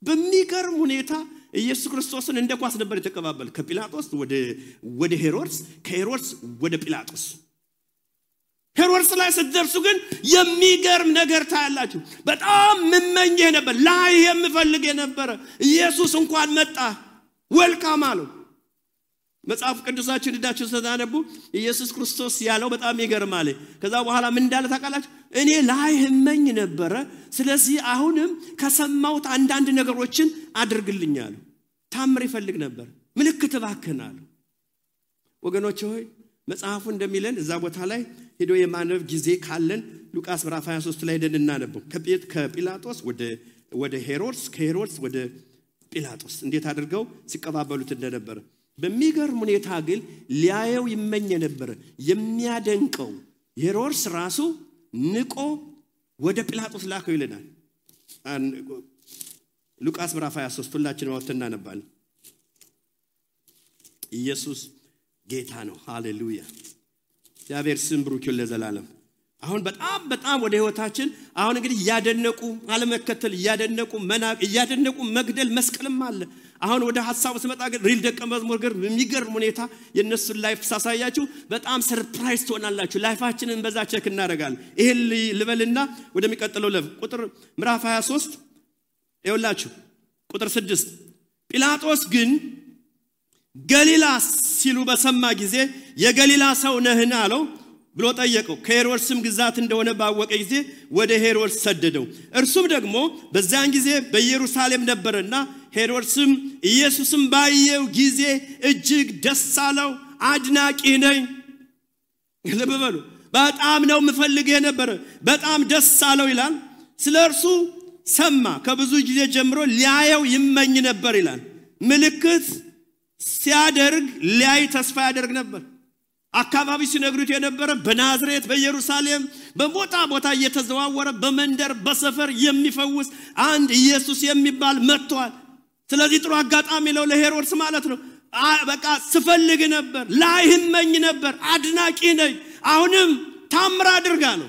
በሚገርም ሁኔታ ኢየሱስ ክርስቶስን እንደ ኳስ ነበር የተቀባበለ። ከጲላጦስ ወደ ሄሮድስ፣ ከሄሮድስ ወደ ጲላጦስ። ሄሮድስ ላይ ስትደርሱ ግን የሚገርም ነገር ታያላችሁ። በጣም ምመኝ ነበር፣ ላይ የምፈልግ ነበር። ኢየሱስ እንኳን መጣ፣ ዌልካም አለው። መጽሐፍ ቅዱሳችን ዳችሁ ተዛነቡ ኢየሱስ ክርስቶስ ያለው በጣም ይገርማል። ከዛ በኋላ ምን እንዳለ ታውቃላችሁ? እኔ ላይ ህመኝ ነበር፣ ስለዚህ አሁንም ከሰማውት አንዳንድ ነገሮችን አድርግልኛል። ታምር ይፈልግ ነበር፣ ምልክት ባከናል። ወገኖች ሆይ መጽሐፉ እንደሚለን እዛ ቦታ ላይ ሄዶ የማንበብ ጊዜ ካለን ሉቃስ ምዕራፍ 23 ላይ ሄደን እናነበው። ከጲላጦስ ወደ ሄሮድስ፣ ከሄሮድስ ወደ ጲላጦስ እንዴት አድርገው ሲቀባበሉት እንደነበረ በሚገርም ሁኔታ ግን ሊያየው ይመኝ ነበር። የሚያደንቀው ሄሮድስ ራሱ ንቆ ወደ ጲላጦስ ላከው ይለናል። ሉቃስ ምዕራፍ 23 ሁላችንም ወጥተን እናነባለን። ኢየሱስ ጌታ ነው። ሃሌሉያ! እግዚአብሔር ስም ብሩክ ይሁን ለዘላለም። አሁን በጣም ወደ ህይወታችን አሁን እንግዲህ ያደነቁ አለመከተል፣ ያደነቁ መግደል፣ መስቀልም አለ። አሁን ወደ ሐሳቡ ስመጣ ግን ሪል ደቀ መዝሙር ግን የሚገርም ሁኔታ የነሱን ላይፍ ሳሳያችሁ በጣም ሰርፕራይዝ ትሆናላችሁ። ላይፋችንን በዛ ቼክ እናደርጋለን። ይሄን ልበልና ወደሚቀጥለው ቁጥር ምዕራፍ 23 ይኸውላችሁ ቁጥር 6 ጲላጦስ ግን ገሊላ ሲሉ በሰማ ጊዜ የገሊላ ሰው ነህን አለው ብሎ ጠየቀው። ከሄሮድስም ግዛት እንደሆነ ባወቀ ጊዜ ወደ ሄሮድስ ሰደደው። እርሱም ደግሞ በዛን ጊዜ በኢየሩሳሌም ነበርና ሄሮድስም ኢየሱስም ባየው ጊዜ እጅግ ደስ አለው። አድናቂ ነኝ ለበበሉ በጣም ነው ምፈልገው ነበር፣ በጣም ደስ አለው ይላል። ስለርሱ ሰማ፣ ከብዙ ጊዜ ጀምሮ ሊያየው ይመኝ ነበር ይላል። ምልክት ሲያደርግ ሊያይ ተስፋ ያደርግ ነበር። አካባቢ ሲነግሩት የነበረ በናዝሬት በኢየሩሳሌም በቦታ እየተዘዋወረ በመንደር በሰፈር የሚፈውስ አንድ ኢየሱስ የሚባል መጥቷል። ስለዚህ ጥሩ አጋጣሚ ነው ለሄሮድስ ማለት ነው። በቃ ስፈልግ ነበር፣ ላይ ይመኝ ነበር፣ አድናቂ ነኝ። አሁንም ታምር አድርጋ ነው።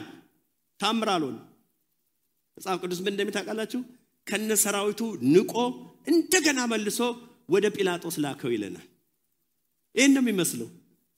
ታምር አልሆነ። መጽሐፍ ቅዱስ ምን እንደሚታውቃላችሁ ከነሰራዊቱ ንቆ እንደገና መልሶ ወደ ጲላጦስ ላከው ይለናል። ይሄን ነው የሚመስለው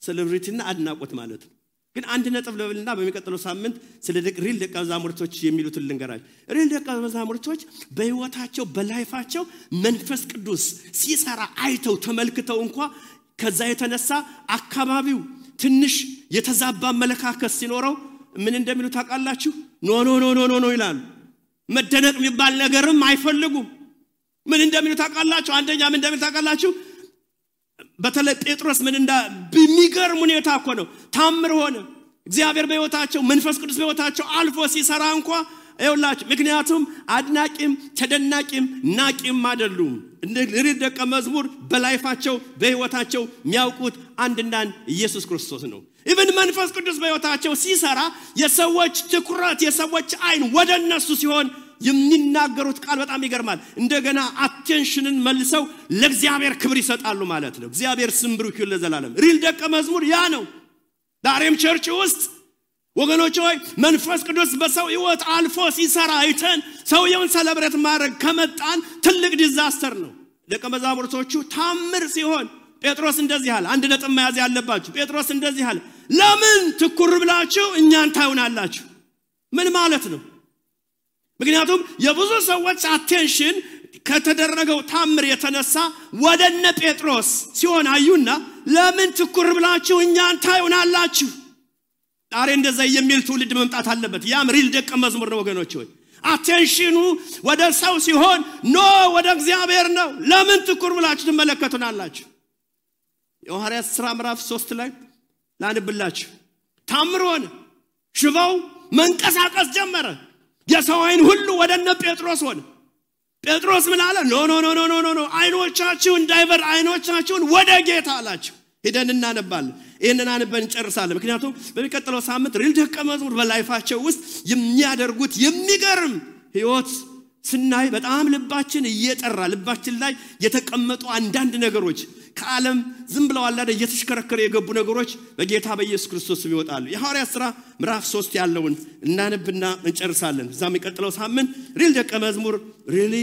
ሴሌብሪቲና አድናቆት ማለት ነው። ግን አንድ ነጥብ ለብልና በሚቀጥለው ሳምንት ስለ ሪል ደቀ መዛሙርቶች የሚሉትን ልንገራችሁ። ሪል ደቀ መዛሙርቶች በህይወታቸው በላይፋቸው መንፈስ ቅዱስ ሲሰራ አይተው ተመልክተው እንኳን ከዛ የተነሳ አካባቢው ትንሽ የተዛባ መለካከስ ሲኖረው ምን እንደሚሉ ታውቃላችሁ? ኖ ይላሉ። መደነቅ የሚባል ነገርም አይፈልጉም። ምን እንደሚሉ ታውቃላችሁ? አንደኛ ምን እንደሚሉ ታውቃላችሁ? በተለይ ጴጥሮስ ምን በሚገርም ሁኔታ እኮ ነው ታምር ሆነ። እግዚአብሔር በህይወታቸው መንፈስ ቅዱስ በህይወታቸው አልፎ ሲሰራ እንኳን አይውላችሁ። ምክንያቱም አድናቂም ተደናቂም ናቂም አይደሉም። እንደ ሪል ደቀ መዝሙር በላይፋቸው በህይወታቸው የሚያውቁት አንድና ኢየሱስ ክርስቶስ ነው። ኢቭን መንፈስ ቅዱስ በህይወታቸው ሲሰራ የሰዎች ትኩረት የሰዎች አይን ወደነሱ ሲሆን የሚናገሩት ቃል በጣም ይገርማል። እንደገና አቴንሽንን መልሰው ለእግዚአብሔር ክብር ይሰጣሉ ማለት ነው። እግዚአብሔር ስም ብሩክ ይሁን ለዘላለም። ሪል ደቀ መዝሙር ያ ነው። ዳሬም ቸርች ውስጥ ወገኖች ሆይ መንፈስ ቅዱስ በሰው ህይወት አልፎ ሲሰራ አይተን ሰውየውን ሰለብሬት ማድረግ ከመጣን ትልቅ ዲዛስተር ነው። ደቀ መዛሙርቶቹ ታምር ሲሆን ጴጥሮስ እንደዚህ አለ። አንድ ነጥብ መያዝ ያለባችሁ ጴጥሮስ እንደዚህ አለ፣ ለምን ትኩር ብላችሁ እኛን ታዩናላችሁ? ምን ማለት ነው? ምክንያቱም የብዙ ሰዎች አቴንሽን ከተደረገው ታምር የተነሳ ወደነ ጴጥሮስ ሲሆን አዩና ለምን ትኩር ብላችሁ እኛን ታዩናላችሁ? ዛሬ እንደዛ የሚል ትውልድ መምጣት አለበት። ያም ሪል ደቀ መዝሙር ነው ወገኖች ሆይ። አቴንሽኑ ወደ ሰው ሲሆን ኖ ወደ እግዚአብሔር ነው። ለምን ትኩር ብላችሁ ትመለከቱናላችሁ? የሐዋርያት ሥራ ምዕራፍ 3 ላይ ላንብላችሁ። ታምር ሆነ። ሽባው መንቀሳቀስ ጀመረ። የሰው አይን ሁሉ ወደነ ጴጥሮስ ሆነ። ጴጥሮስ ምን አለ? ኖ አይኖቻችሁን ዳይቨር አይኖቻችሁን ወደ ጌታ አላችሁ። ሄደን እናነባለን። ይሄንን አንበን እንጨርሳለን። ምክንያቱም በሚቀጥለው ሳምንት ሪል ደቀ መዝሙር በላይፋቸው ውስጥ የሚያደርጉት የሚገርም ህይወት ስናይ በጣም ልባችን እየጠራ ልባችን ላይ የተቀመጡ አንዳንድ ነገሮች ከዓለም ዝም ብለው አላደ እየተሽከረከረ የገቡ ነገሮች በጌታ በኢየሱስ ክርስቶስ ይወጣሉ። የሐዋርያት ሥራ ምዕራፍ 3 ያለውን እናነብና እንጨርሳለን። እዛም የሚቀጥለው ሳምንት ሪል ደቀ መዝሙር ሪሊ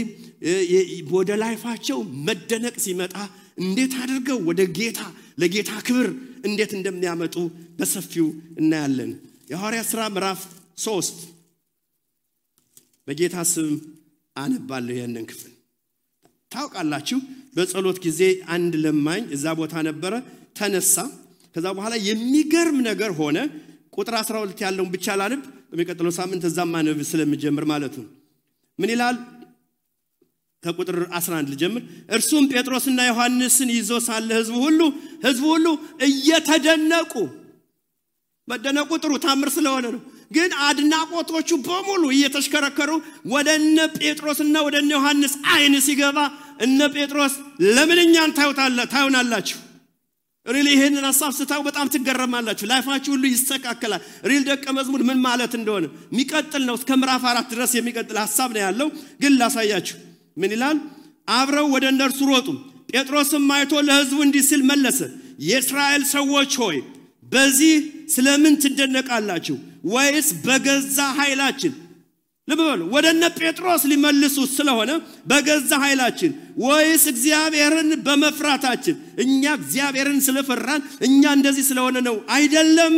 ወደ ላይፋቸው መደነቅ ሲመጣ እንዴት አድርገው ወደ ጌታ ለጌታ ክብር እንዴት እንደሚያመጡ በሰፊው እናያለን። የሐዋርያት ሥራ ምዕራፍ 3 በጌታ ስም አነባለሁ። ያንን ክፍል ታውቃላችሁ። በጸሎት ጊዜ አንድ ለማኝ እዛ ቦታ ነበረ፣ ተነሳ። ከዛ በኋላ የሚገርም ነገር ሆነ። ቁጥር 12 ያለውን ብቻ ላንብ፣ በሚቀጥለው ሳምንት እዛም ማነብ ስለምጀምር ማለት ነው። ምን ይላል? ከቁጥር 11 ልጀምር። እርሱም ጴጥሮስና ዮሐንስን ይዞ ሳለ ህዝቡ ሁሉ እየተደነቁ መደነቁ ጥሩ ታምር ስለሆነ ነው። ግን አድናቆቶቹ በሙሉ እየተሽከረከሩ ወደነ ጴጥሮስና ወደነ ዮሐንስ አይን ሲገባ እነ ጴጥሮስ ለምን እኛን ታዩናላችሁ? ሪል ይሄንን ሐሳብ ስታው በጣም ትገረማላችሁ ላይፋችሁ ሁሉ ይስተካከላል ሪል ደቀ መዝሙር ምን ማለት እንደሆነ የሚቀጥል ነው እስከ ምዕራፍ 4 ድረስ የሚቀጥል ሐሳብ ነው ያለው ግን ላሳያችሁ ምን ይላል አብረው ወደ እነርሱ ሮጡ ጴጥሮስም አይቶ ለሕዝቡ እንዲህ ሲል መለሰ የእስራኤል ሰዎች ሆይ በዚህ ስለምን ትደነቃላችሁ ወይስ በገዛ ኃይላችን ለበሉ ወደነ ጴጥሮስ ሊመልሱ ስለሆነ በገዛ ኃይላችን ወይስ እግዚአብሔርን በመፍራታችን እኛ እግዚአብሔርን ስለፈራን እኛ እንደዚህ ስለሆነ ነው አይደለም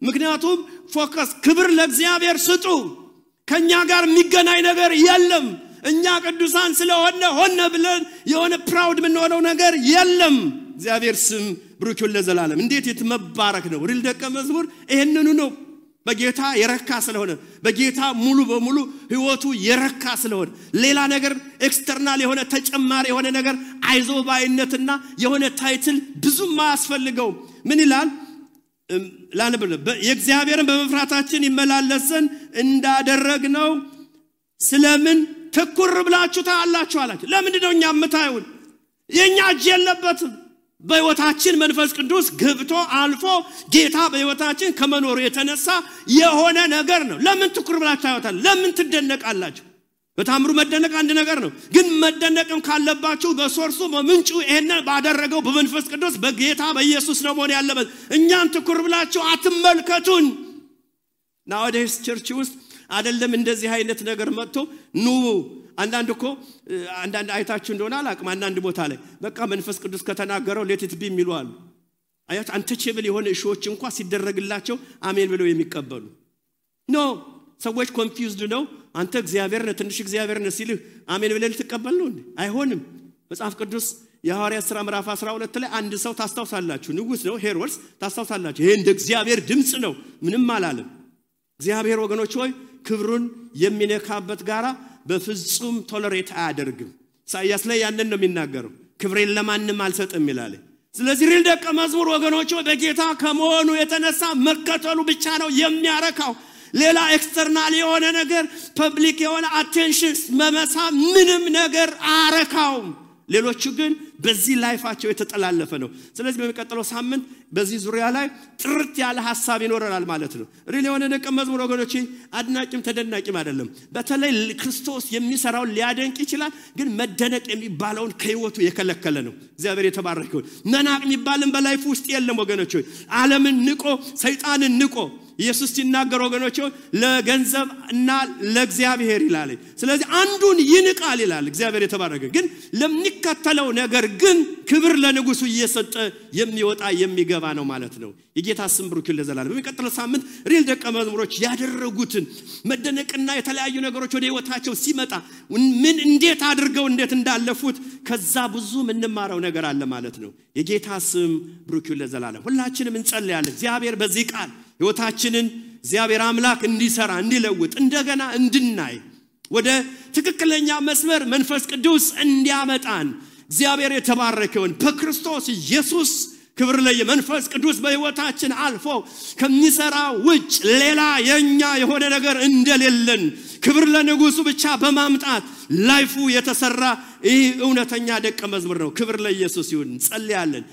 ምክንያቱም ፎከስ ክብር ለእግዚአብሔር ስጡ ከኛ ጋር የሚገናኝ ነገር የለም እኛ ቅዱሳን ስለሆነ ሆነ ብለን የሆነ ፕራውድ ምን ሆነው ነገር የለም እግዚአብሔር ስም ብሩክ ይሁን ለዘላለም እንዴት የተመባረክ ነው ሪል ደቀ መዝሙር ይሄንኑ ነው በጌታ የረካ ስለሆነ በጌታ ሙሉ በሙሉ ህይወቱ የረካ ስለሆነ ሌላ ነገር ኤክስተርናል የሆነ ተጨማሪ የሆነ ነገር አይዞባይነትና የሆነ ታይትል ብዙም ማያስፈልገው ምን ይላል ላንብብ የእግዚአብሔርን በመፍራታችን ይመላለሰን እንዳደረግነው ስለምን ትኩር ብላችሁ ታያላችሁ አላችሁ ለምንድነው እኛ የምታዩን የኛ እጅ የለበትም በህይወታችን መንፈስ ቅዱስ ገብቶ አልፎ ጌታ በህይወታችን ከመኖሩ የተነሳ የሆነ ነገር ነው ለምን ትኩር ብላችሁ ታዩታል ለምን ትደነቃላችሁ በታምሩ መደነቅ አንድ ነገር ነው ግን መደነቅም ካለባችሁ በሶርሱ በምንጩ ይሄን ባደረገው በመንፈስ ቅዱስ በጌታ በኢየሱስ ነው መሆን ያለበት እኛን ትኩር ብላችሁ አትመልከቱን nowadays ቸርች ውስጥ አይደለም እንደዚህ አይነት ነገር መጥቶ ኑ አንዳንድ አይታችሁ እንደሆነ አላቅም አንዳንድ ቦታ ላይ በቃ መንፈስ ቅዱስ ከተናገረው ሌት ኢት ቢ የሚሉአል አያት አንተቼብል የሆነ እሾች እንኳን ሲደረግላቸው አሜን ብለው የሚቀበሉ ኖ ሰዎች ኮንፊውዝድ ነው አንተ እግዚአብሔር ነህ ትንሽ እግዚአብሔር ነህ ሲልህ አሜን ብለህ ልትቀበል ነው አይሆንም መጽሐፍ ቅዱስ የሐዋርያት ሥራ ምዕራፍ 12 ላይ አንድ ሰው ታስታውሳላችሁ ንጉስ ነው ሄሮድስ ታስታውሳላችሁ ይሄ እንደ እግዚአብሔር ድምጽ ነው ምንም አላለም እግዚአብሔር ወገኖች ሆይ ክብሩን የሚነካበት ጋራ በፍጹም ቶለሬት አያደርግም ኢሳይያስ ላይ ያንን ነው የሚናገረው ክብሬን ለማንም አልሰጥም ይላል ስለዚህ ሪል ደቀ መዝሙር ወገኖች በጌታ ከመሆኑ የተነሳ መከተሉ ብቻ ነው የሚያረካው ሌላ ኤክስተርናል የሆነ ነገር ፐብሊክ የሆነ አቴንሽን መመሳ ምንም ነገር አረካውም ሌሎቹ ግን በዚህ ላይፋቸው የተጠላለፈ ነው ስለዚህ በሚቀጥለው ሳምንት በዚህ ዙሪያ ላይ ጥርት ያለ ሐሳብ ይኖረናል ማለት ነው ሪል የሆነ ደቀ መዝሙር ወገኖች አድናቂም ተደናቂም አይደለም በተለይ ክርስቶስ የሚሰራው ሊያደንቅ ይችላል ግን መደነቅ የሚባለውን ከህይወቱ የከለከለ ነው እግዚአብሔር የተባረከው መናቅ የሚባልን በላይፍ ውስጥ የለም ወገኖች ዓለምን ንቆ ሰይጣንን ንቆ ኢየሱስ ሲናገር ወገኖች ለገንዘብና ለእግዚአብሔር ይላል ስለዚህ አንዱን ይንቃል ይላል እግዚአብሔር የተባረከ ግን ለሚከተለው ነገር ግን ክብር ለንጉሱ እየሰጠ የሚወጣ የሚገባ ነው ማለት ነው የጌታ ስም ብሩክ ይሁን ለዘላለም በሚቀጥለው ሳምንት ሪል ደቀ መዝሙሮች ያደረጉትን መደነቅና የተለያዩ ነገሮች ወደ ህይወታቸው ሲመጣ ምን እንዴት አድርገው እንዴት እንዳለፉት ከዛ ብዙ ምንማረው ነገር አለ ማለት ነው የጌታ ስም ብሩክ ይሁን ለዘላለም ሁላችንም እንጸልያለን እግዚአብሔር በዚህ ቃል ህይወታችንን እግዚአብሔር አምላክ እንዲሰራ እንዲለውጥ እንደገና እንድናይ ወደ ትክክለኛ መስመር መንፈስ ቅዱስ እንዲያመጣን እግዚአብሔር የተባረከውን በክርስቶስ ኢየሱስ ክብር ለመንፈስ ቅዱስ በህይወታችን አልፎ ከሚሰራ ውጭ ሌላ የኛ የሆነ ነገር እንደሌለን ክብር ለንጉሱ ብቻ በማምጣት ላይፉ የተሰራ ይህ እውነተኛ ደቀ መዝሙር ነው ክብር ለኢየሱስ ይሁን ጸልያለን